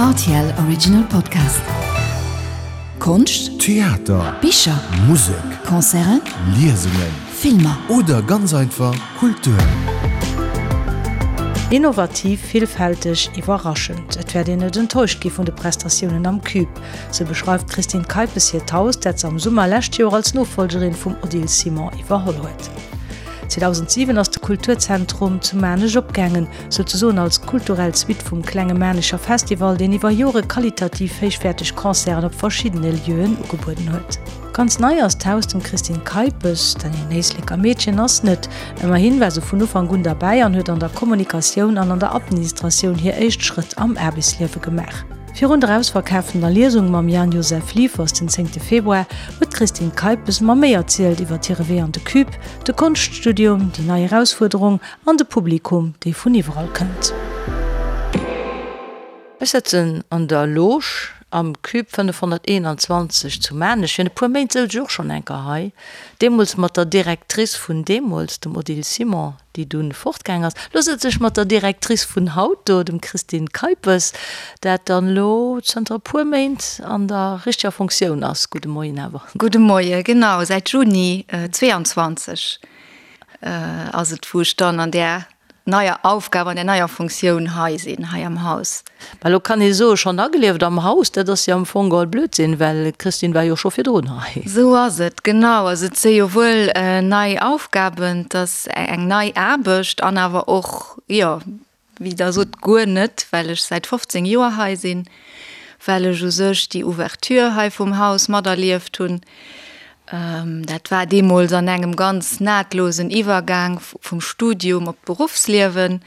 Rtl Original Podcast. Konscht, Theater, Bicher, Musek, Concerten, Liesungen Filmer. oder ganz einfach Kultur. Innovativ, villfälteg, iwwerraschend, et wäert een net enttäuscht gi vun de Prestatiounen am Cube. Sou beschreift d'Christine Keipes hiert Haus, dat se am Summer lescht Joer als Nofollgerin vum Odile Simon iwwerholl huet. 2007 ass de Kulturzentrum zu Maarnech opgaangen, souzesoen als kulturell Suite vum Klenge Maarnecher Festival, deen iwwer Jore qualitativ héichwäerteg Concerten op verschiddene Lieuen ugebueden huet. Ganz nei ass d'Haus dem Christine Keipes, dat een Éisleker Meedchen ass, net. Ëmmerhin war se vun Ufank un derbäi an huet an der Kommunikatioun an an der Administratioun hir éischt Schrëtt am Aarbechtsliewe gemaach. Virun der ausverkaaftener Liesung mam Jan Josef Liefers den zéngte Februar huet d'Christine Keipes mer méi erzielt iwwer hire Wee an de Cube, de Konschtstudium, déi nei Erausfuerderung an de Publikum, dee vun iwwerall kënnt. Ech sëtzen an der Loge am Cube 521 zu Maarnech. Virun e puer Méint souz ech och schonn eng Kéier hei, deemools mat der Directrice vun deemools, dem Odile Simon, déi dunn fortgaang ass. Lo sëtz ech mat der Directrice vun haut do, dem Christine Keipes, dat dann elo zënter e puer Méint an der richteger Fonctioun ass. Gudde Moien awer. Gudde Moie, genau, säit Juni 22 ass et, wou ech dann an där neier Aufgab, an där neier Fonctioun hei sinn, hei am Haus. Mä elo kann ee soen, schonn agelieft am Haus, dat ass jo am Fong geholl Blödsinn, well d'Christine war jo scho virdrun hei. Esou ass et, genau. Also et si jo wuel nei Aufgaben, et ass eng nei Aarbecht an awer och, jo, wéi Der sot, guer net, well ech säit 15 Joer hei sinn, well ech u sech déi Ouverture hei vum Haus materlieft hunn. Dat war deemools an engem ganz nahtlosen Iwwergaang vum Studium op d'Beruffsliewen,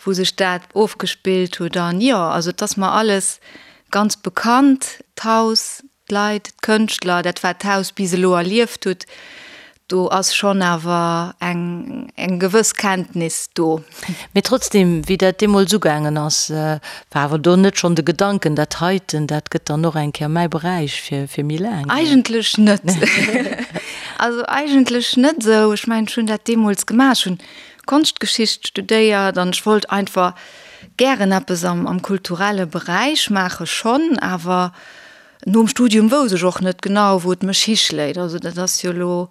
wou sech dat ofgespillt huet. An jo, also et ass mer alles ganz bekannt, d'Haus, d'Leit, d'Kënschtler, dat wat d'Haus bis elo erlieft hutt. Do ass schonn awer eng eng gewëss Kenntnis do. Mee trotzdem, wéi dat deemools ugaangen ass, war awer do net schonn de Gedanken, dat heiten, dat gëtt dann och eng Kéier mäi Beräich fir fir méi laang? Eigentlech net. Also eigentlech net esou. Ech mengen, ech hunn dat deemools gemaach, ech hunn Konschtgeschicht studéiert an ech wollt einfach gären eppes am am kulturelle Beräich maache schonn, awer Nom Studium wousst ech och net genau, wou et mech hischléit. Also dat ass jo elo,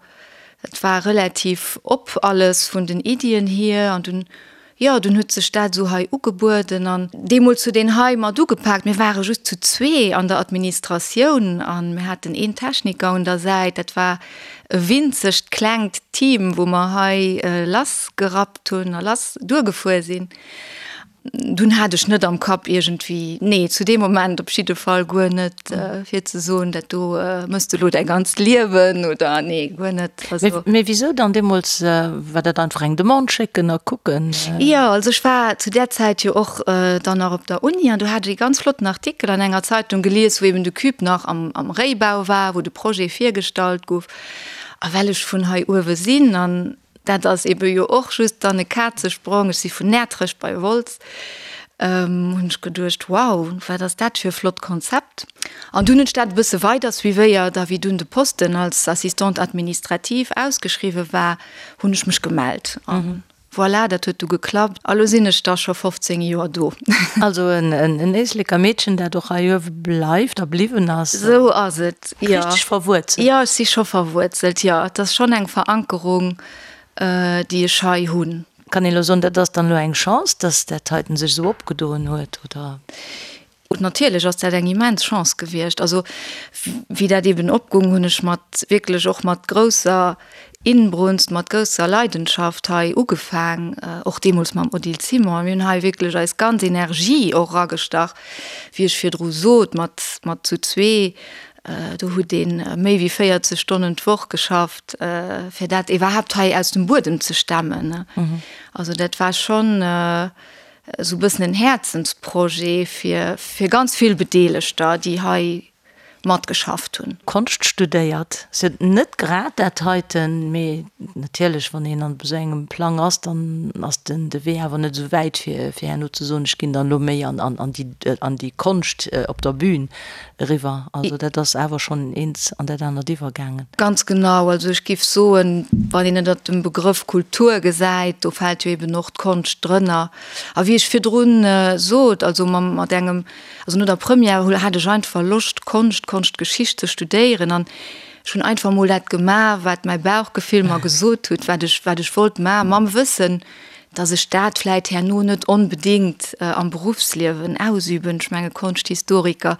et war relativ op alles vun den Iddien hier an dunn, jo, dunn huet sech dat esou hei ugebueden an deemools huet een hei mat ugepaakt. Mir ware just zu zwee an der Administratioun a mir haten een Techniker un der Säit. Dat war e winzegt klengt Team, wou mer hei lassgerappt hunn a lass duergefuer sinn. Dunn hat ech net am Kapp iergendwéi, nee, zu deem Moment op jidde Fall guer net, fir ze soen, dat do mëss de elo däi ganzt Liewen oder nee, guer net. Also. Mee wisou dann deemools? War dat einfach eng Demande schécken a kucken? Jo, also ech war zu där Zäit jo och dann nach op der Uni an do hat ech ee ganz flotten Artikel an enger Zeitung gelies, wou eben de Cube nach am am Réibau war, wou de Projet virgestallt gouf. A well ech vun hei uewe sinn an Dat ass ebe jo och just dann e Kazesprong. Ech si vun Näertrech bei Wolz. Hunn ech geduecht, wow, wat ass dat fir e flott Konzept. An dunn hunn ech dat e bësse weider suivéiert a wéi dunn de Posten als Assistante administrative ausgeschriwwe war, hunn ech mech gemellt. A voilà, dat huet du geklappt a lo sinn ech da scho 15 Joer do. Also en Éisleker Meedchen, dat och hei uewe bleift a bliwwen ass. Esou ass et. Jo. Richteg verwuerzelt. Jo, ech si scho verwuerzelt, jo. Et ass schonn eng Verankerung, déi ech hei hunn. Kann een elo soen, dat ass dann elo eng Chance, dass dat heiten sech esou opgedoen huet, oder? Natierlech ass dat eng immens Chance gewiescht. Also, wéi dat eben opgoung, hunn ech mat, wierklech och mat grousser Inbrunst, mat grousser Leidenschaft hei ugefaang, och deemools mam Odile Simon. Mir hunn hei wierklech eis ganz Energie och eragestach, wéi ech virdru sot, mat, mat zu zwee. Do huet ee méi wéi 40 Stonnen d'Woch geschafft, fir dat iwwerhaapt hei aus dem Buedem ze stemmen. Also dat war schonn esou e bëssen en Häerzensprojet fir, fir ganz vill Bedeelegter, déi hei. Matgeschafft hunn. Konscht studéiert. Ass jo net grad dat heiten, mee natierlech, wann een an esou engem Plang ass, dann ass den de Wee awer net esou wäit fir fir herno ze soen, ech ginn dann elo méi an an an déi an déi Konscht op der Bühn eriwwer. Also dat ass awer schonn eent an dat anert iwwergaangen. Ganz genau. Also ech géif soen, wann een ënnert dem Begrëff Kultur gesäit, do fält jo eben och d'Konscht drënner. A wéi ech virdrun sot, also mam mat engem Also no der Première hat ech einfach Loscht Konscht, Konschtgeschicht ze studéieren an ech hunn einfach mol dat gemaach, wat mäi Bauchgefill mer gesot huet, wat ech, wat ech wollt maachen, mam Wëssen, dass ech dat vläit herno net onbedéngt am Beruffsliewen ausüben. Ech menge Konschthistoriker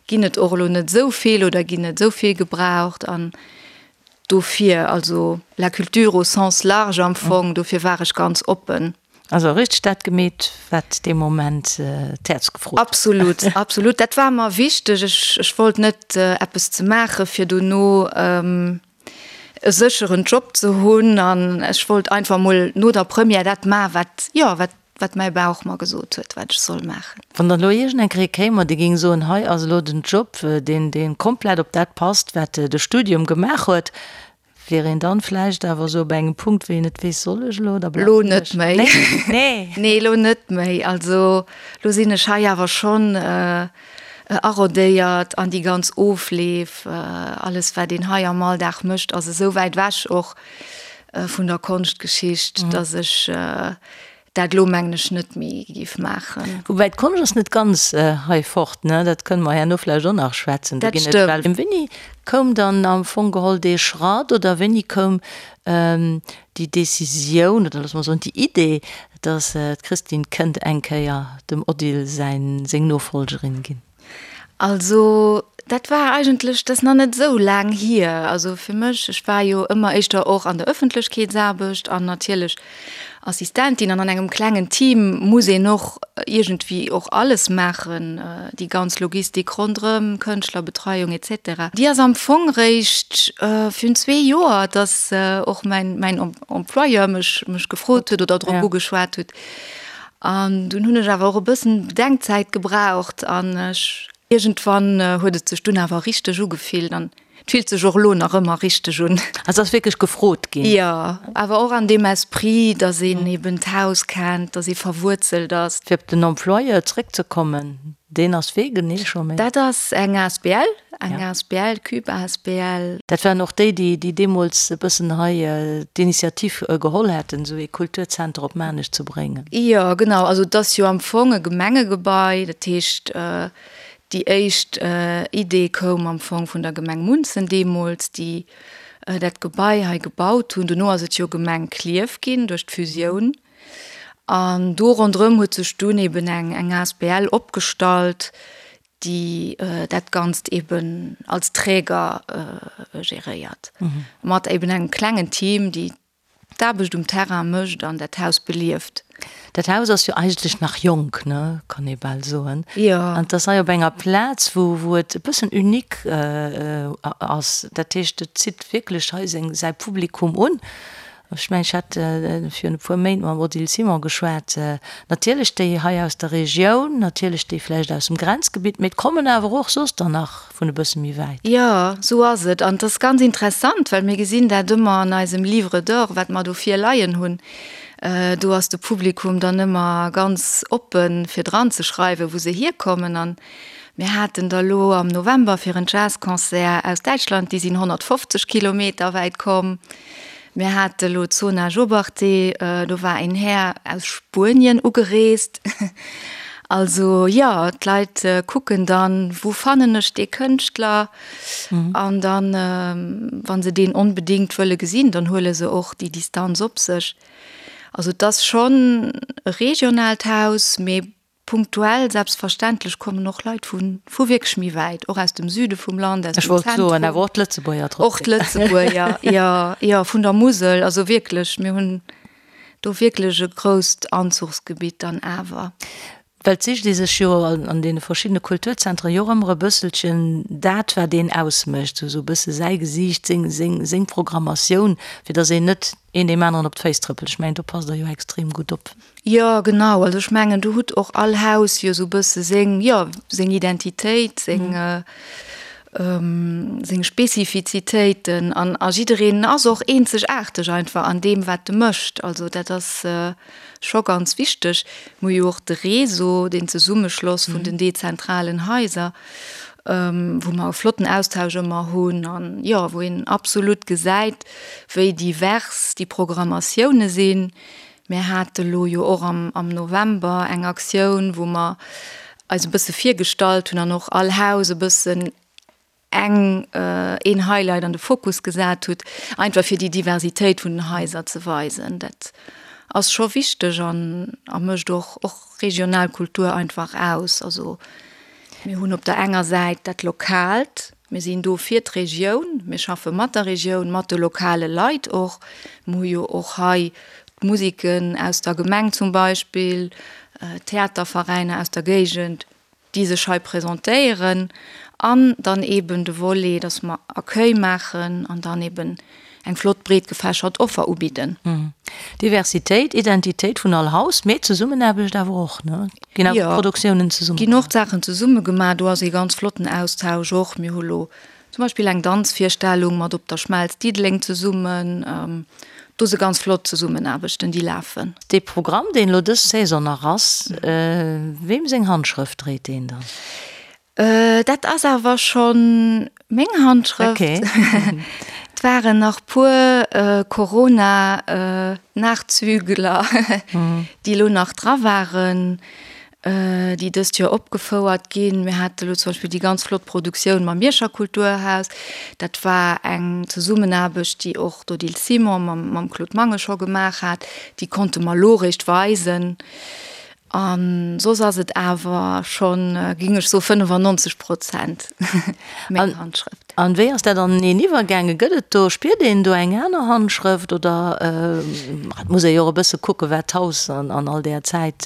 ginn et och elo net esou vill oder ginn net esou vill gebraucht an dofir, also la culture au sens large am Fong, dofir war ech ganz oppen. Also richteg dat gemeet, wat dee Moment d'Häerz gefrot huet. Absolut, absolut. Dat war mer wichteg. Ech, ech wollt net eppes ze maache fir dono e sécheren Job ze hunn an ech wollt einfach mol no der Première dat maachen, wat, jo, wat, wat mäi Bauch mer gesot huet, wat ech soll maachen. Wann dann elo iergend eng Kéier ee kéim an dee géing soen, hei ass elo den Job, deen, dee komplett op dat passt, wat de Studium gemaach huet, Wier een dann vläicht awer esou op engem Punkt, wéi een net weess, soll ech elo oder bleiwen ech? Lo net méi. Nee. Nee, lo net méi. Also lo sinn ech hei awer schonn arodéiert an déi ganz Ofleef, alles wat een hei am Alldag mécht, ass esou wäit ewech och vun der Konschtgeschicht, datt ech Dat elo mengen ech net méi géif maachen. Woubäi d'Konscht ass net ganz hei fort, ne? Dat kënne mer herno vläicht och nach schwätzen. Dat stëmmt. Wéini koum dann am Fong geholl dee Schratt oder wéini koum déi Décisioun oder loosse mer soen déi Idee, datt d'Christine kënnt eng Kéier dem Odile säin, seng Nofolgerin ginn? Also dat war eigentlech, dat ass nach net esou laang hier. Also fir mech, ech war jo ëmmer éischter och an der Ëffentlechkeetsaarbecht an natierlech Assistentin an an engem klengen Team muss een och iergendwéi och alles maachen, déi ganz Logistik ronderëm, Kënschtlerbetreiung et cetera. Déi ass am Fong réischt virun zwee Joer, datt och mäin mäin Employeur mech mech gefrot huet oder drop ugeschwat huet, An dunn hunn ech awer och e bëssen Bedenkzäit gebraucht an ech, iergendwann huet et sech dunn awer richteg ugefillt an et fillt sech och elo nach ëmmer richteg un. Also ass wierklech gefrot ginn? Jo, awer och an deem Esprit, dass een eben d'Haus kennt, dass ee verwuerzelt ass. Fir op den Employeur zréckzekommen, deen ass wee genee scho méi? Dat ass eng asbl, eng asbl, Cube asbl. Dat waren och déi, déi deemools e bëssen hei d'Initiativ geholl hätten, esou ee Kulturzenter op Maarnech ze bréngen. Jo, genau. Also et ass jo am Fong e Gemengegebai. Dat heescht, déi éischt Idee koum am Fong vun der Gemeng Munzen deemools, déi dat Gebai hei gebaut hunn. Dono ass et jo Gemeng Klierf ginn duerch d'Fusioun. An do ronderëm huet sech dunn eben eng eng asbl opgestallt, déi dat Ganzt eben als Träger geréiert, mat eben engem klengen Team, déi d'Aarbecht um Terrain mécht an dat Haus belieft. Dat Haus ass jo eigentlech nach jonk, ne, kann ee bal soen. Jo. An et ass hei op enger Plaz, wou wou et e bëssen unique ass. Dat heescht, et zitt wierklech hei seng säi Publikum un. Ech mengen, ech hat virun e puer Méint mam Odile Simon geschwat. Natierlech déi hei aus der Regioun, natierlech déi vläicht aus dem Grenzgebitt, mee et kommen awer och soss der nach vun e bësse méi wäit. Jo, esou ass et. An et ass ganz interessant, well mir gesinn dat ëmmer an eisem Livre d'or, wat mer do virleien hunn. Do ass de Publikum dann ëmmer ganz oppen, fir dranzeschreiwen, wou se hierkommen. An mir haten der elo am November fir en Jazzconcert aus Däitschland, déi sinn 150 Kilometer wäit komm. Mir hate lo d'Zona Jobarteh, do war een Här aus Spuenien ugereest. Also jo, d'Leit kucken dann, wou fannen ech dee Kënschtler? An dann, wa se deen onbedéngt wëlle gesinn, dann huele se och déi Distanz op sech. Also et ass schonn e regionaalt Haus, mee Punktuell, selbstverständlech, kommen och Leit vu vu wierklech méi wäit, och aus dem Süde vum Land, aus dem Zentrum. Ech wollt soen, awer och d'Lëtzebuerger trotzdem. Och d'Lëtzebuerger, jo, jo, vun der Musel, also wierklech, mir hunn do wierklech e grousst Anzuchsgebitt dann awer. Well et sicht ee sech jo an deene verschiddene Kulturzentren jo och ëmmer e bësselchen dat, wat een ausmécht, sou sou e bësse säi Gesiicht, seng, seng, seng Programmatioun, fir datt een net een deem aneren op d'Féiss trëppelt. Ech mengen, do passt Der jo extrem gutt op. Jo, genau. Also ech mengen, do hutt och all Haus jo esou e bësse seng, jo, seng Identitéit, seng. Seng Spezifizitéiten an a jiddereen ass och eenzegaarteg einfach an deem wat e mécht. Also dat ass scho ganz wichteg. Mir hu jo och de Réseau, deen Zesummeschloss vun den dezentralen Haiser, wou mer e flotten Austausch ëmmer hunn an jo wou een absolut gesäit, wéi divers déi Programmatioune sinn. Mir hate lo jo och am November eng Aktioun, wou mer eis e bësse virgestallt hunn an och all Haus e bëssen eng, een Highlight an de Fokus gesat hutt, einfach fir déi Diversitéit vun den Haiser ze weisen. Dat ass scho wichteg an a mécht och och regional Kultur einfach aus. Also mir hunn op der enger Säit dat Lokaalt, Mir sinn do fir d'Regioun, mir schaffe mat der Regioun, mat de lokale Leit och. Mir hu jo och hei d'Museken aus der Gemeng zum Beispill, d'Theaterveräiner aus der Géigend, déi sech hei presentéieren. An dann eeben de Volet, dass mer Accueil maachen an dann eeben eng flott breet gefächert Offer ubidden. Diversitéit, Identitéit vun all Haus, mee Zesummenaarbecht awer och, ne? Ginn awer Produktiounen zesumme gemaach? Ginn och Saachen zesumme gemaach. Do ass ee ganz flotten Austausch och. Mir hu lo zum Beispill eng Danzvirstellung mat Op der Schmelz Diddeleng zesummen. Do si ganz flott Zesummenaarbechten, déi lafen. Dee Programm, deen elo dës Saison nach ass, weem seng Handschrëft dréit deen dann? Dat ass awer schonn meng Handschrëft. Okay. Et waren nach puer Corona-Nachzügler, déi elo nach dra waren, déi dëst Joer opgefouert ginn. Mir hate elo zum Beispill déi ganz flott Produktioun mam Mierscher Kulturhaus. Dat war eng Zesummenaarbecht, déi och d'Odile Simon mam Claude Mangen scho gemaach hat. Déi konnte mer elo eréischt weisen. A soss ass et awer schonn, géing ech soen, 95 Prozent meng Handschrëft. An wéi ass dat aneneen iwwergaangen? Gëtt et do, spiert een do eng aner Handschrëft oder et muss ee jo och e bësse kucken, wat d'Haus an all där Zäit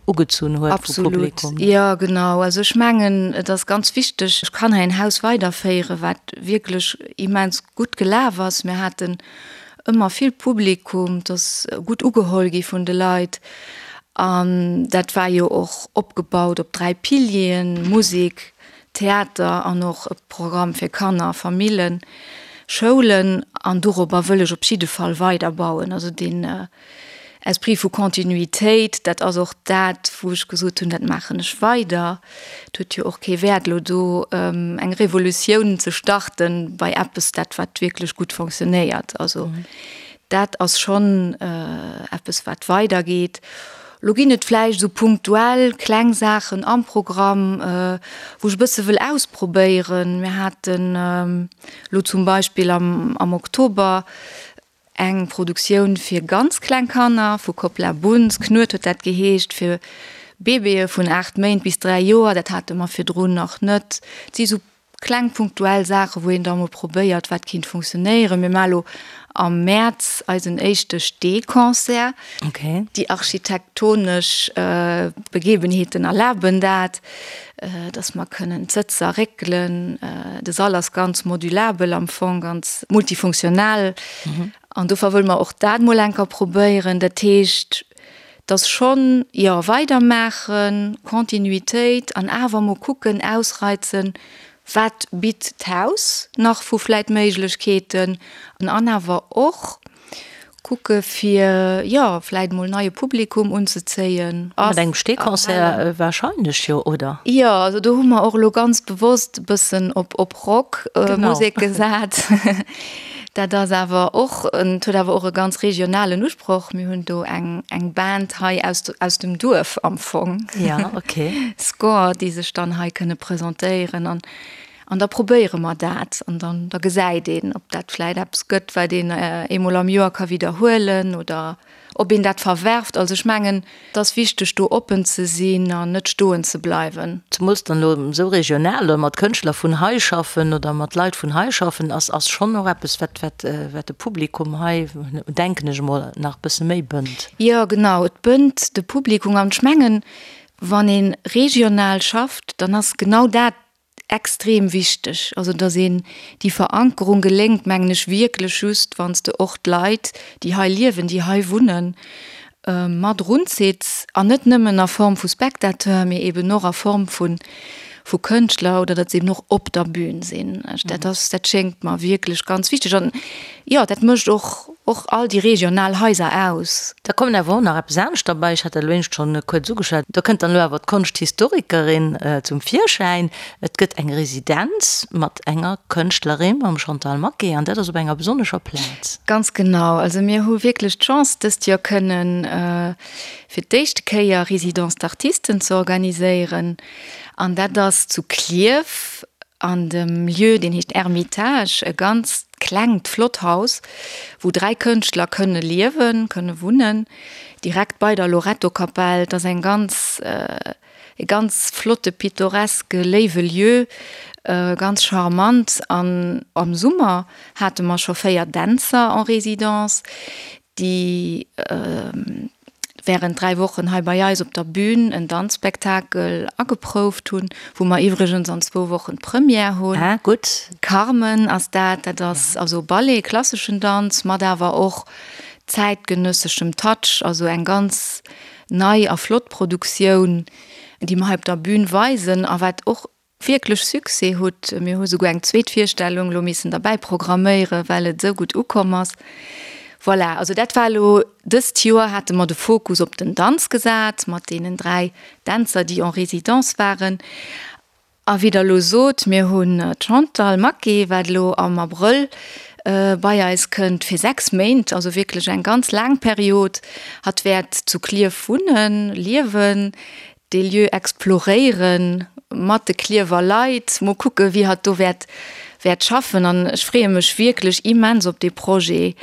ugezunn huet vu Publikum? Absolut, jo genau. Also ech mengen, et ass ganz wichteg, ech kann hei en Haus weiderféieren, wat wierklech immens gutt gelaf ass. Mir haten ëmmer vill Publikum, et ass gutt ugeholl gi vun de Leit an dat war jo och opgebaut op 3 Pilieren, Musek, Theater an och e Programm fir Kanner, Famillen, Schoulen an dorobber wëll ech op jidde Fall weider bauen. Also deen Esprit vu Continuitéit, dat ass och dat wou ech gesot hunn, dat maachen ech weider. Et huet jo och kee Wäert elo do eng Revolutioun ze starten bei eppes, dat wat wierklech gutt fonctionnéiert. Also dat ass schonn eppes wat weidergeet. Elo ginn et vläicht esou punktuell kleng Saachen am Programm, wou ech e bësse wëll ausprobéieren. Mir haten elo zum Beispill am Oktober Eng Produktioun fir ganz kleng Kanner vu Koppla Bunz, Knuet huet dat geheescht, fir Bébéë vun 8 Méint bis 3 Joer. Dat hate mer virdrun nach net. Et si sou kleng punktuell Saachen, wou een da mol probéiert, wat kinnt funktionéieren. Mir maache lo am Mäerz eisen éischte Steeconcert. Déi architektonesch Begebenheeten erlaben dat. dass mer kënnen d'Sëtzer réckelen. De Sall ass ganz modulabel am Fong, ganz multifunktional. An dofir wëlle mer och dat mol eng Kéier probéieren. Dat heescht, dass schonn, jo, weidermaachen, Continuitéit an awer mol kucken, ausreizen, wat bitt d'Haus nach vu vläit Méiglechkeeten an awer och, Kucke fir, jo, vläit mol neie Publikum unzezéien. Mat engem Steeconcert wahrscheinlech, jo, oder? Jo, also do hu mer och elo ganz bewosst e bëssen op op Rock Musek gesat. Dat ass awer och, et huet awer och e ganz regionalen Usproch. Mir hunn do eng eng Band hei aus aus dem Duerf am Fong. Ja, okay. Score, déi sech dann hei kënne presentéieren an An da probéiere mer dat an dann da gesäit een, ob dat vläit eppes gëtt, wat een eemol am Joer ka widderhuelen oder ob een dat verwerft. Also ech mengen, et ass wichteg do oppen ze sinn an net stoen ze bleiwen. Zemools dann elo esou regional oder mat Kënschtler vun hei schaffen oder mat Leit vun hei schaffen, ass ass schonn och eppes, wat wat wat de Publikum hei, denken ech emol, nach e bësse méi bënnt. Jo, genau, et bënnt de Publikum an ech mengen, wann ee regional schafft, dann ass genau dat Extrem wichteg, also datt een déi Verankerung geléngt, mengen ech wierklech just, wann s de och d'Leit, déi hei liewen, déi hei wunnen, mat erunzitts an net nëmmen a Form vu Spectateur, mee eben och a Form vu. vu Kënschtler oder datt se eben och op der Bühn sinn. Dat ass, dat schéngt mer wierklech ganz wichteg an jo, dat mécht och och all déi regional Haiser aus. Da kommen awer och nach eppes anescht derbäi, ech hat dat elo éinescht schonn kuerz ugeschwat, do kënnt dann elo awer d'Konschthistorikerin zum Virschäin. Et gëtt eng Residenz mat enger Kënschtlerin, mam Chantal Maquet, an dat ass op enger besonnescher Plaz. Ganz genau, also mir hu wierklech d'Chance dëst Joer kënnen fir d'éischte Kéier Résidence d'artistes ze organiséieren an dat ass zu Klierf an dem Lieu, deen heescht Ermitage, e ganz klengt, flott Haus, wou 3 Kënschtler kënne liewen, kënne wunnen, direkt bei der Loretto-Kapell. Et ass eng ganz, e ganz flotte, pittoreske, léiwe Lieu, ganz charmant. An am Summer hate mer scho 4 Dänzer en résidence, déi während 3 Wochen hei bei eis op der Bühn en Danzspektakel ageprouft hunn, wou mer iwwregens an zwou Wochen d'Première hunn. Ah, gutt. Carmen ass dat, dat ass also Ballet, klasseschen Danz, mat awer och zäitgenësseschem Touch, also eng ganz nei a flott Produktioun, déi mer hei op der Bühn weisen a wat och wierklech Succès hutt. Mir hu souguer eng zweet Virstellung elo missen derbäi programméieren, well et esou gutt ukomm ass. Voilà, also dat war elo dëst Joer hate mer de Fokus op den Danz gesat mat deenen 3 Dänzer, déi en résidence waren. A wéi Der elo sot, mir hunn d'Chantal Maquet, wat elo am Abrëll bei eis kënnt fir 6 Méint, also wierklech eng ganz laang Period. Hatt wäert zu Klierf wunnen, liewen. dee Lieu exploréieren mat de Klierwer Leit, mol kucke wéi hatt do wäert wäert schaffen an ech freeë mech wierklech immens op dee Projet,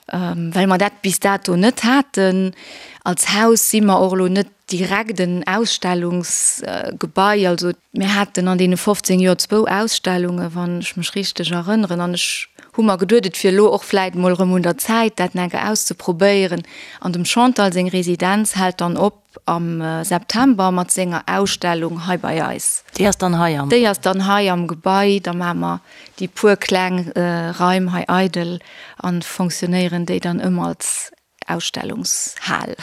well mer dat bis dato net haten. Als Haus si mer och elo net direkt en Ausstellungsgebai, also mir haten an deene 15 Joer zwou Ausstellunge wann ech mech richteg erënneren an ech hu mer geduet, et wier elo och vläit mol erëm un der Zäit dat enke auszeprobéieren an dem Chantal seng Residenz hält dann op Am September mat senger Ausstellung hei bei eis. Déi ass dann hei am. Déi ass dann hei am Gebai. Da maache mer déi puer kleng Raim hei eidel a fonctionnéieren déi dann ëm als Ausstellungshal.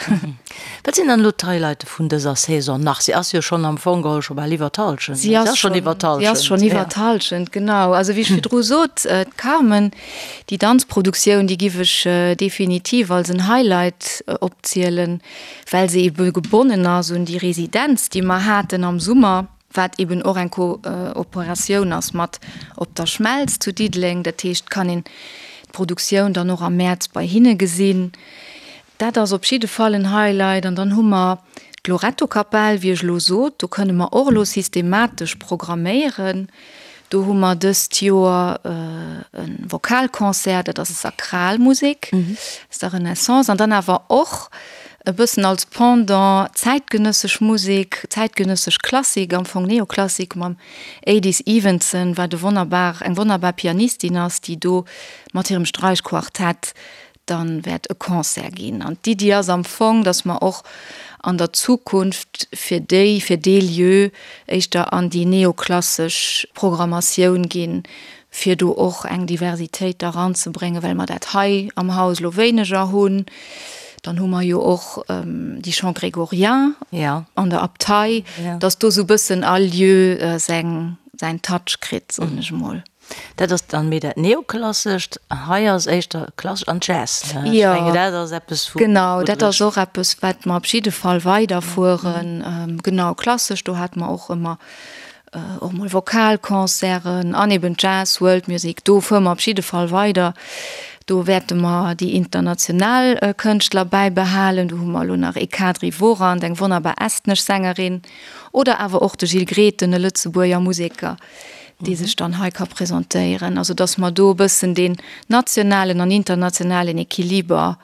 Wat sinn dann elo d'Highlighte vun dëser Saison nach? Si ass jo schonn am Fong geholl scho bal iwwer d'Hallschent. Si ass schonn iwwer d'Hallschent. Si ass schonn iwwer d'Hallschent, genau. Also wéi ech virdru sot, d'Carmen, déi Danzproduktioun, déi giff ech definitiv als en Highlight opzielen. well se ebe gebonnen ass un déi Residenz, déi mer haten am Summer, wat eben och eng Kooperatioun ass mat Op der Schmelz zu Diddeleng. Dat heescht, kann een d'Produktioun dann och am Mäerz bei hinne gesinn. Dat ass op jidde Fall en Highlight. An dann hu mer d'Loretto-Kapell, wéi ech elo sot, do kënne mer och elo systematesch programméieren. Do hu mer dëst Joer e Vokalconcert, dat ass Sakralmusek aus der Renaissance an dann awer och e bëssen als Pendant zäitgenëssesch Musek, zäitgenëssesch Klassik, am Fong Neoklassik mam Adis Evenson, wat e wonnerbar, eng wonnerbar Pianistin ass, déi do mat hirem Sträichquartett dann wäert e Concert ginn. An d'Iddi ass am Fong, dass mer och an der Zukunft fir déi, fir dee Lieu éischter an déi neoklassesch Programmatioun ginn, fir do och eng Diversitéit da ranzebréngen, well mer dat hei am Haus elo wéineger hunn. Dann hu mer jo och déi Chants grégoriens an der Abtei, dass do sou e bëssen all Lieu seng, säin Touch kritt, soen ech emol. Dat ass dann méi dat Neoklassescht, hei ass éischter klassesch an Jazz, ne? Ech mengen, dat ass eppes, wou. Genau, dat ass och eppes, wat mer op jidde Fall weiderfueren. Genau, klassesch, do hate mer och ëmmer och mol Vokalconcerten an eben Jazz, World Music, do fuere mer op jidde Fall weider. Do wäerte mer déi international Kënschtler bäibehalen. Do hu mer elo nach Ekadri Voorand, eng wonnerbar estnesch Sängerin, oder awer och de Gilles Grethen, e Lëtzebuerger Museker. dee sech dann hei ka presentéieren. Also datt mer do e bëssen deen nationalen an internationalen Equiliber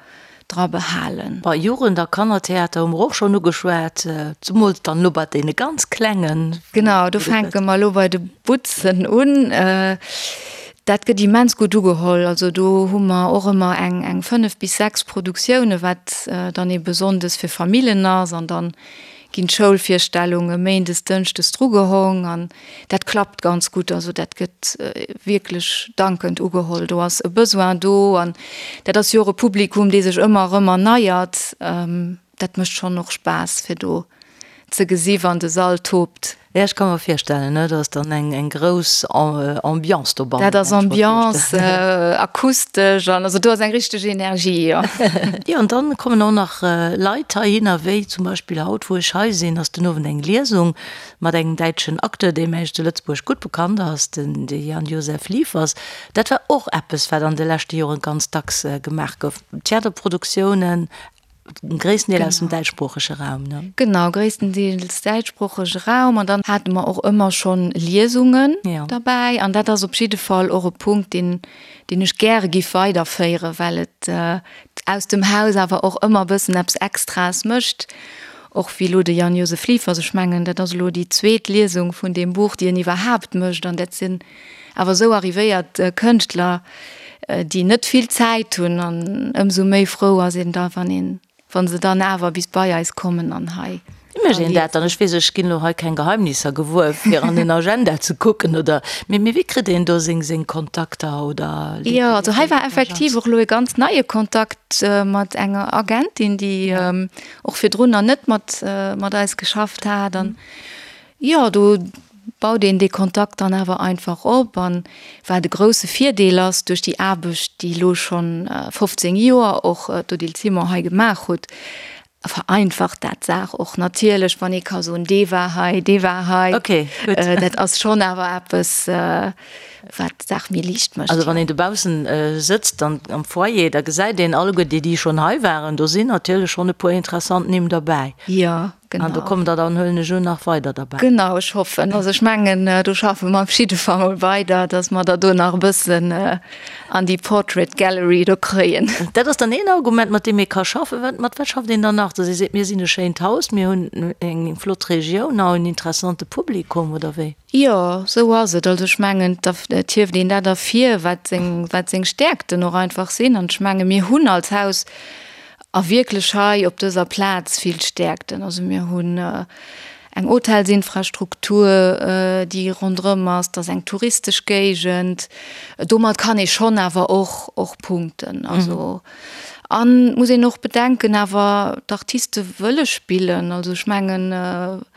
dra behalen. Bei Jugend a Kannertheater hu mer och schonn ugeschwat, zemools dann elo bei deene ganz Klengen. Genau, do fänke mer elo bei de Butzen un. Dat gëtt immens gutt ugeholl. Also do hu mer och ëmmer eng eng 5 bis 6 Produktioune wat dann ebe sonndes fir Famillen ass an dann ginn d'Schoulvirstellunge méindes, dënschdes drugehong an dat klappt ganz gutt. Also dat gëtt wierklech dankend ugeholl. Do ass e Besoin do an dat ass jo och e Publikum, dee sech ëmmer erëm erneiert. Dat mécht schonn och Spaass, fir do. ze gesi wann de Sall tobt. Ja, ech ka mer virstellen, ne, dat ass dann eng eng grouss Ambiance dobannen. Dat ass Ambiance, akustesch an also do ass eng richteg Energie, jo. Jo, an dann kommen och nach Leit heihinner, wéi zum Beispill haut, wou ech hei sinn, ass den Owend eng Liesung mat engem däitschen Acteur, deem eigentlech zu Lëtzebuerg gutt bekannt ass, den de Jan-Josef Liefers. Dat war och eppes, wat an de leschte Joren ganz dacks gemaach gouf, Theaterproduktiounen Gréissten Deel aus dem däitschsproochege Raum, ne? Genau, gréisstendeels däitschsproochege Raum. An dann hate mer och ëmmer schonn Liesungen derbäi. An dat ass op jidde Fall och e Punkt, deen, deen ech gäre giff weiderféieren, well et aus dem Haus awer och ëmmer e bëssen eppes Extraes mécht. Och wéi elo de Jan-Josef Liefers, ech mengen, dat ass elo déi zweet Liesung vun deem Buch, déi en iwwerhaapt mécht. An dat sinn awer esou arrivéiert Kënschtler, déi net vill Zäit hunn an ëmsou méi frou ass een da, wann een, wa se dann awer bis bei eis kommen an hei. Wéi mécht een dat dann? Ech weess, ech ginn elo hei keng Geheimnisser gewuer, fir an den Agenda ze kucken oder, mee mee wéi kritt een do seng seng Kontakter oder? Jo, also hei war effektiv och elo e ganz neie Kontakt mat enger Agentin, déi och virdrun nach net mat mat eis geschafft hat an Jo, do baut een dee Kontakt dann awer einfach op. An wat e grousse Virdeel ass, duerch déi Aarbecht, déi elo schonn 15 Joer och d'Odile Simon hei gemaach hutt, vereinfacht dat d'Saach och natierlech, wann ee ka soen, dee war hei, dee war hei. Dat ass schonn awer eppes, wat d'Saach méi liicht mécht. Also wann een dobaussen sëtzt an am Foyer, da gesäit een alleguer déi, déi schonn hei waren. Do sinn natierlech schonn e puer interessant Nimm derbäi. Jo. Genau. An do kommen der dann, huelen ech un, nach weider derbäi. Genau, ech hoffen. Also ech mengen, do schaffe mer op jidde Fall mol weider, dass mer der do nach e bëssen an déi Portrait Gallery do kréien. Dat ass dann een Argument, mat deem ee ka schaffen. Wat, mat wat schafft een dann nach? Dass ee seet, mir sinn e schéint Haus, mir hunn eng flott Regioun a en interessante Publikum, oder wéi? Jo, esou ass et. Also ech mengen, et hieft een dat ervir, wat seng, wat seng Stäerkten och einfach sinn. An ech menge mir hunn als Haus A wierklech hei op dëser Plaz vill Stäerkten. Also mir hunn eng Hotelsinfrastruktur, déi ronderëm ass, dat ass eng touristesch Géigend. Domat kann ee schonn awer och och punkten. Also an muss een och bedenken awer, d'Artiste wëlle spillen. Also ech mengen,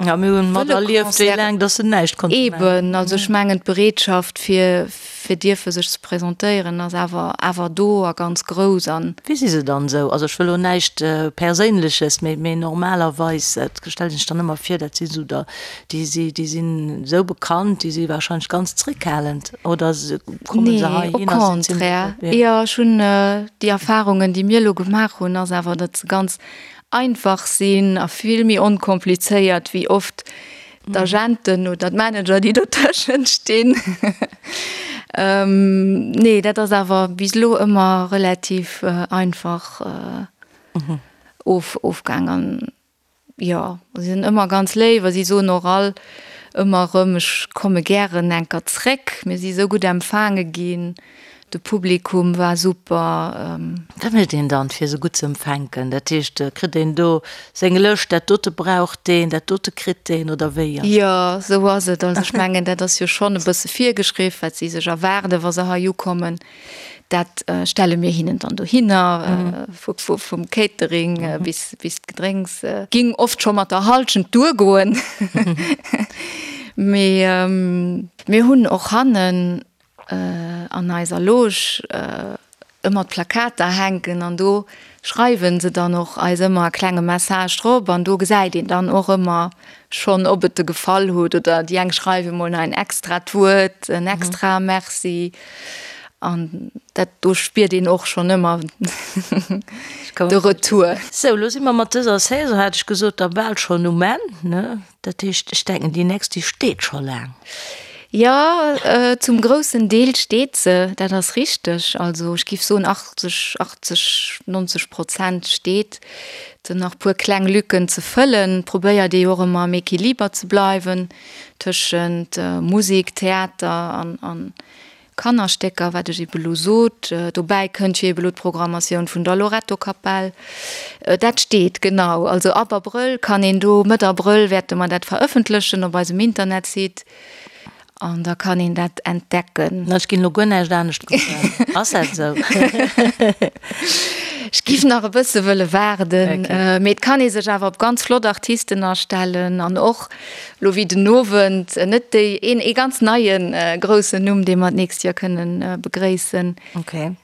Ja, mir hunn materlieft, wéi laang datt se näischt konnte maachen. Eeben, also ech mengen d'Bereetschaft fir fir dierfe sech ze presentéieren ass awer awer do a ganz grouss an. Wéi si se dann esou? Also ech wëll elo näischt Perséinleches, mee mee normalerweis, et stellt een sech dann ëmmer vir, dat si sou der, déi si déi sinn esou bekannt, déi si wahrscheinlech ganz zréckhalend, oder komme se Nee, au heihin a sinn zimlech contraire. op, jo. Ech hunn déi Erfahrungen, déi mir elo gemaach hunn, ass awer, datt se ganz einfach sinn a vill méi onkomplizéiert wéi oft D'Agenten oder d'Manager, déi dotëschent stinn. Nee, dat ass awer bis elo ëmmer relativ einfach of, ofgaang. An jo, si sinn ëmmer ganz léif a si soen och all ëmmer erëm, ech komme gären enker zréck, mir si sou gutt empfaange ginn. De Publikum war super. Wat mécht een dann fir se gutt ze empfänken? Dat heescht, kritt een do seng Lëscht, dat dote brauch deen, dat dote kritt deen, oder wéi ass dat? Jo, sou ass et. Also ech mengen, dat ass jo schonn e bësse virgeschriww, wat si sech erwaarden, wa se hei ukommen. Dat stelle mir hinnen dann dohinner, vum Catering bis d'Gedrénks. Ging oft scho mat der Halschent duergoen. Mee mir hunn och hannen an eiser Loge ëmmer d'Plakater hänken an do schreiwen se dann och eis ëmmer e klenge Message drop an do gesäit een dann och ëmmer schonn, ob et de gefall huet oder déi eng schreiwe mol nach en extrat Wuert, en extra Merci an dat do spiert een och schonn ëmmer de Retour. Sou, lo si mer mat dëser Saison, hat ech gesot, da bal schonn um Enn, ne? Dat heescht, ech denken, déi nächst, déi steet scho laang. Jo, zum groussen Deel steet se, dat ass richteg. Also ech géif soen 80, 80, 90 Prozent steet. Et sinn nach e puer kleng Lücken ze fëllen. Et probéiert ee jo och ëmmer am Equiliber ze bleiwen tëschent Musek, Theater an Kannerstécker, wat ech ebe lo sot. Dobäi kënnt jo ebe lo d'Programmatioun vun der Loretto-Kapell. Dat steet, genau. Also ab Abrëll kann een do, Mëtt Abrëll wäerte mer dat verëffentlechen op eisem Internetsite an da kann een dat entdecken. Ech ginn elo guer näischt anescht kucken. Ass dat esou? Ech giff nach e bësse wëlle waarden, mee et kann ee sech awer op ganz flott Artisten astellen an och lo wéi den Owend net déi een ee ganz neie groussen Numm, dee mer d'nächst Joer kënnen begréissen. Okay.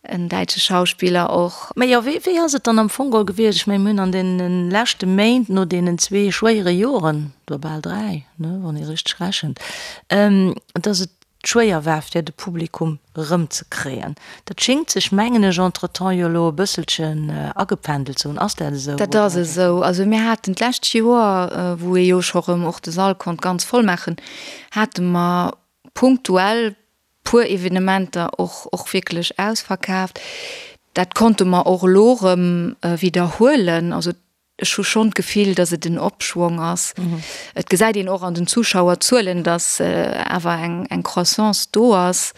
En däitsche Schauspiller och. Mä jo, wéi wéi ass et dann am Fong geholl gewiescht? Ech mengen, mir hunn an deene leschte Méint no deenen zwee schwéiere Joren, oder bal dräi, ne, wann ee richteg rechent, dass et schwéier war fir de Publikum erëmzekréien. Dat schéngt sech, mengen ech, entretemps jo elo e bësselchen agependelt ze hunn. Ass dat esou? Dat ass esou. Also mir haten d'lescht Joer, wou ee jo scho rëm och de Sall konnt ganz voll maachen, hate mer punktuell puer Evenementer och och wierklech ausverkaaft. Dat konnte mer och elo erëm widderhuelen. Also Ech hu schonn d'Gefill, datt et en Opschwong ass. Et gesäit een och an den Zuschauerzuelen, datt awer eng Croissance do ass,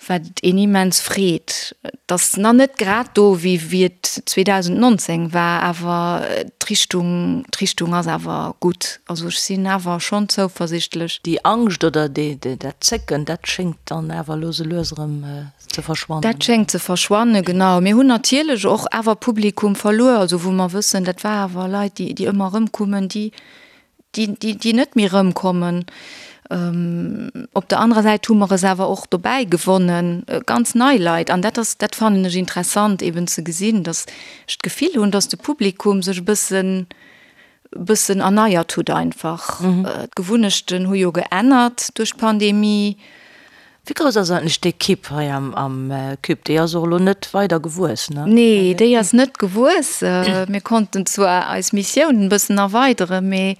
wat een immens freet. Et ass nach net grad do, wéi wéi et 2019 war, awer d'Richtung, d'Richtung ass awer gutt. Also ech sinn awer schonn zouversichtlech. Déi Angscht oder dat Zécken, dat schéngt dann awer elo sou lues erëm ze verschwannen. Dat schéngt ze verschwannen, genau. Mir hunn natierlech och awer Publikum verluer, also wou mer wëssen, dat war awer Leit, déi, déi ëmmer erëmkummen, déi, déi, déi, déi net méi erëmkommen. Op der anerer Säit hu mer es awer och dobäi gewonnen, ganz nei Leit. An dat ass, dat fannen ech interessant eben ze gesinn, datt ech d'Gefill hunn, datt de Publikum sech e bëssen, bëssen erneiert hutt einfach. D'Gewunnechten hu jo geännert duerch d'Pandemie. Wéi grouss ass eigentlech d'Ekipp hei am Cube? Déi ass och elo net weider gewuess, ne? Nee, déi ass net gewuess. Mir konnten zwar eis Missiounen e bëssen erweideren, mee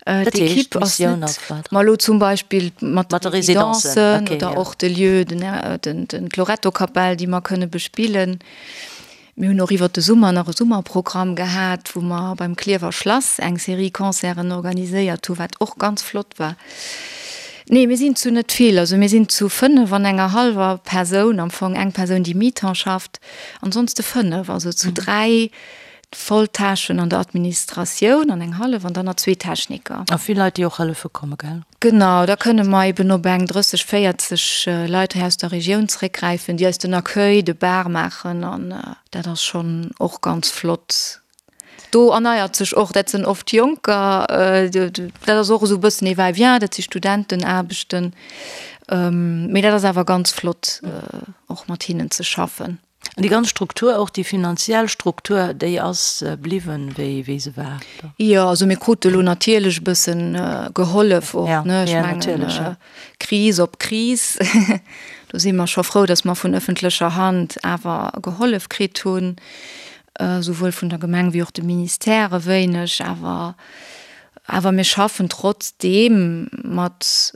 d'Ekipp ass net. Ma elo zum Beispill mat de Residencen oder och de Lieu, den d'Loretto-Kapell, déi mer kënne bespillen. Mir hunn och iwwert de Summer nach e Summerprogramm gehat, wou mer beim Klierfer Schlass eng Serie Concerten organiséiert hu, wat och ganz flott war. Nee, mir sinn zu net vill, also mir sinn zu 5 an enger hallwer Persoun, am Fong eng Persoun, déi mi-temps schafft, ansonste 5, also zu 3 Volltâchen an der Administratioun an eng hallef an dann nach zwee Techniker. A vill Leit, déi och hëllefe komme, gell? Genau, da kënne mer eben op eng 30, 40 Leit hei aus der Regioun zeréckgräifen, déi eis den Accueil, de Bar maachen an dat ass schonn och ganz flott. Do erneiert sech och, dat sinn oft Jonker, dat ass och esou e bëssen ee Va-et-vient, dat si Studentenaarbechten, mee dat ass awer ganz flott och mat hinnen ze schaffen. An déi ganz Struktur, och déi finanziell Struktur, déi ass bliwwen, wéi, wéi se war? Jo, also mir krute lo natierlech e bëssen gehollef och, ne? Ech mengen, Kris op Kris, do si mer scho frou, datt mer vun ëffentlecher Hand awer gehollef kritt hunn, souwuel vun der Gemeng wéi och de Ministère e wéineg. Awer, awer mir schaffen trotzdeem mat.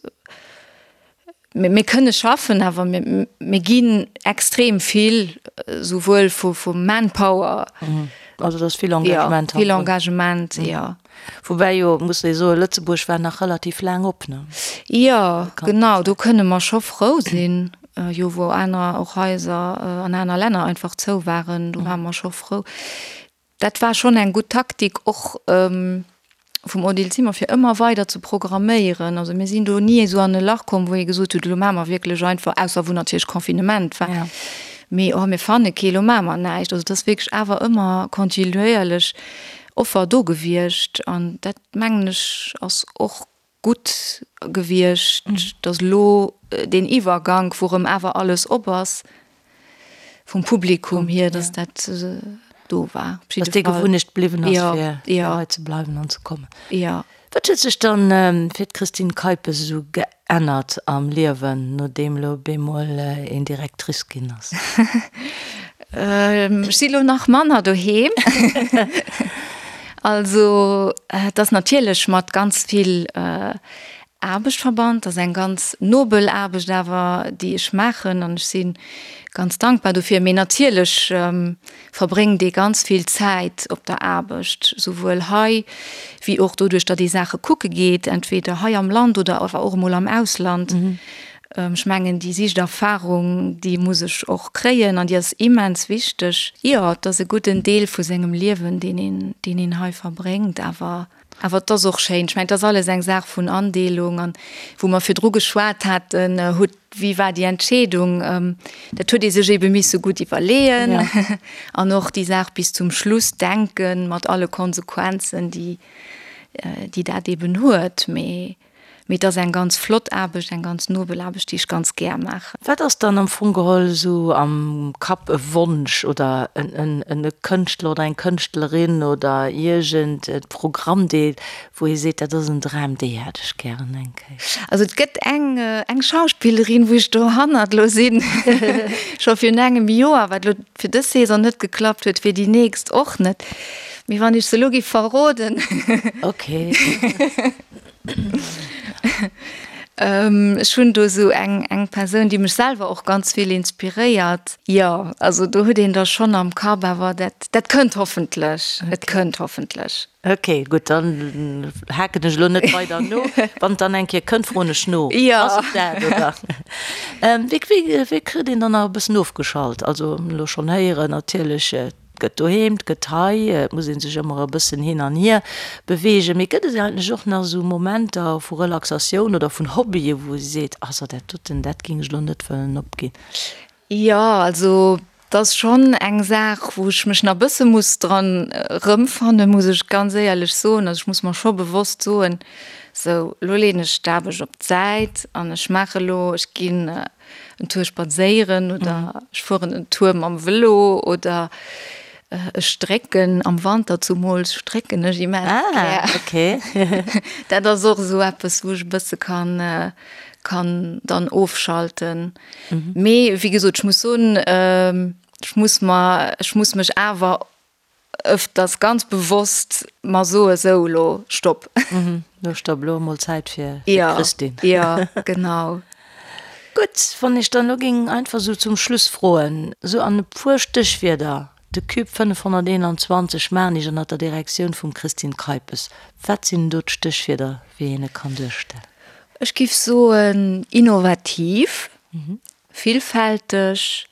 Mir kënne schaffen, awer mir ginn extrem vill, souwuel vu Manpower. Also et ass vill Engagement. Jo, vill Engagement, jo. Woubäi jo, muss ee soen, Lëtzebuerg war nach relativ laang op, ne? Jo, genau, do kënne mer scho frou sinn, jo wou aner och Haiser an aner Länner einfach zou waren, do ware mer scho frou. Dat war schonn eng gutt Taktik och vum Odile Zimmer, fir ëmmer weider ze programméieren. Also mir sinn do ni esou an e Lach komm, wou ee gesot huet, elo maache mer wierklech einfach, ausser wou natierlech Confinement war, mee oh mir fanne kee, elo maache mer näischt. Also et ass wierklech awer ëmmer kontinuéierlech Offer do gewiescht an dat mengen ech ass och gutt gewiescht, datt elo deen Iwwergank, wou erëm awer alles op ass, vum Publikum hier, datt dat do war. Op jidde Fall. Datt déi Gewunnecht bliwwen ass, fir hei ze bleiwen an ze kommen. Jo. Wat huet sech dann fir d'Christine Keipes esou geännert am Liewen, nodeem elo bemol een Directrice ginn ass? Ech si lo nach manner doheem. Also et ass natierlech mat ganz vill Aarbecht verbannt. Et ass eng ganz nobel Aarbecht awer, déi ech maachen an ech si ganz dankbar dofir. Mee natierlech verbréngt ee ganz vill Zäit op der Aarbecht, souwuel hei wéi och doduerch, datt ee Saache kucke geet, entweder hei am Land oder awer och emol am Ausland. Ech mengen, déi Sichterfahrung, déi muss ech och kréien an déi ass immens wichteg. Jo, et ass e gudden Deel vu sengem Liewen, deen een, deen een hei verbréngt, awer. Awer et ass och schéin. Ech mengen, et ass alles eng Saach vun Andeelung. An wou mer virdru geschwat haten, huet, wéi war déi Entscheedung? Dat huet ee sech eebe misse gutt iwwerleeën an och déi Saach bis zum Schluss denken, mat alle Konsequenzen, déi, déi dat eeben huet. Mee Mee et ass eng ganz flott Aarbecht, eng ganz nobel Aarbecht, déi ech ganz gär maachen. Wat ass dann am Fong geholl esou am Kapp e Wonsch oder e Kënschtler oder eng Kënschtlerin oder iergend e Programmdeel, wou ee seet, dat ass en Dram, déi hätt ech gären eng Kéier? Also et gëtt eng, eng Schauspillerin, wou ech dohannert elo sinn, scho virun engem Joer, wat elo fir dës Saison net geklappt huet, fir déi nächst och net. Mee wann ech se elo géif verroden. Ok. Ech hunn do esou eng eng Persoun, déi mech selwer och ganz vill inspiréiert. Jo, also do huet een da schonn am Kapp, awer dat dat kënnt hoffentlech, et kënnt hoffentlech. Ok, gutt, dann haken ech elo net weider no. Wann et dann eng Kéier kënnt, froen ech no. Jo. Ass et dat, oder? Wéi wéi wéi kritt een dann nach e bëssen ofgeschalt? Also elo schonn héieren natierlech, Et gëtt doheem, et gëtt hei, et muss ee sech ëmmer e bëssen hin an hier beweegen. Mee gëtt et eigentlech och nach esou Momenter vu Relaxatioun oder vun Hobbye wou ee seet, also dat doten, dat géing ech elo net wëllen opginn? Jo, also et ass schonn eng Saach, wou ech mech nach e bësse muss dran erëmfannen, muss ech ganz éierlech soen. Also ech muss mer scho bewosst soen, sou elo leeën ech d'Aarbecht op d'Säit an ech maache elo, ech ginn en Tour spadséieren oder ech fueren en Tour mam Vëlo oder ech strécken, am Wanter zumools strécken ech immens gär. Ah, okay. Dat ass och esou eppes, wou ech e bësse kann, kann dann ofschalten. Mee wéi gesot, ech muss soen, ech muss mer, ech muss mech awer ëfters ganz bewosst mer soe sou elo stopp. Lo stopp, elo emol Zäit fir d'Christine. Jo, genau. Gutt, wann ech dann elo géing einfach esou zum Schluss froen, esou an e puer Stéchwierder, de Cube 521 Maarnich ënnert der Direktioun vum Christine Keipes, wat sinn do d'Stéchwierder, wéi een e kann duerstellen? Ech giff soen innovativ, villfälteg,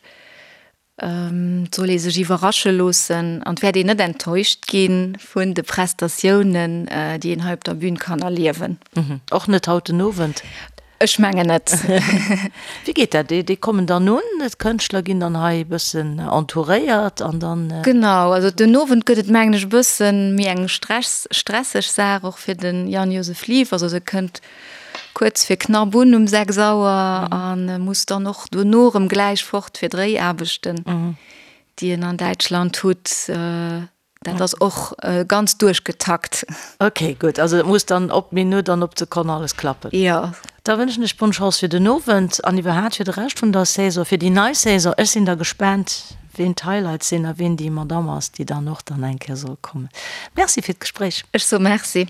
Et soll ee sech iwwerrasche loossen an et wäert een net enttäuscht gi vun de Prestatiounen, déi een hei op der Bün kann erliewen. Och net haut den Owend? Ech mengen net. Wéi geet dat? Déi kommen dann un, d'Kënschtler ginn dann hei e bëssen entouréiert an dann. Genau, also den Owend gëtt et mengen ech e bëssen méi eng stresseg Saach och fir de Jan-Josef Liefers. Also e kënnt Kuerz fir knapp un um 6 Auer a muss dann och dono erëm gläich fort fir Dréiaarbechten, déi en an Däitschland hutt. Dat ass och ganz duerchgetakt. Ok, gutt. Also et muss dann op d'Minutt an op d'Sekonn alles klappen. Jo. Da wënschen ech bonne Chance fir den Owend an iwwerhaat fir de Rescht vun der Saison, fir déi nei Saison. Ech sinn da gespaant, ween d'Highlights sinn a ween déi Madame ass, déi dann och dann eng Kéier soll kommen. Merci fir d'Gespréich. Ech soe Merci.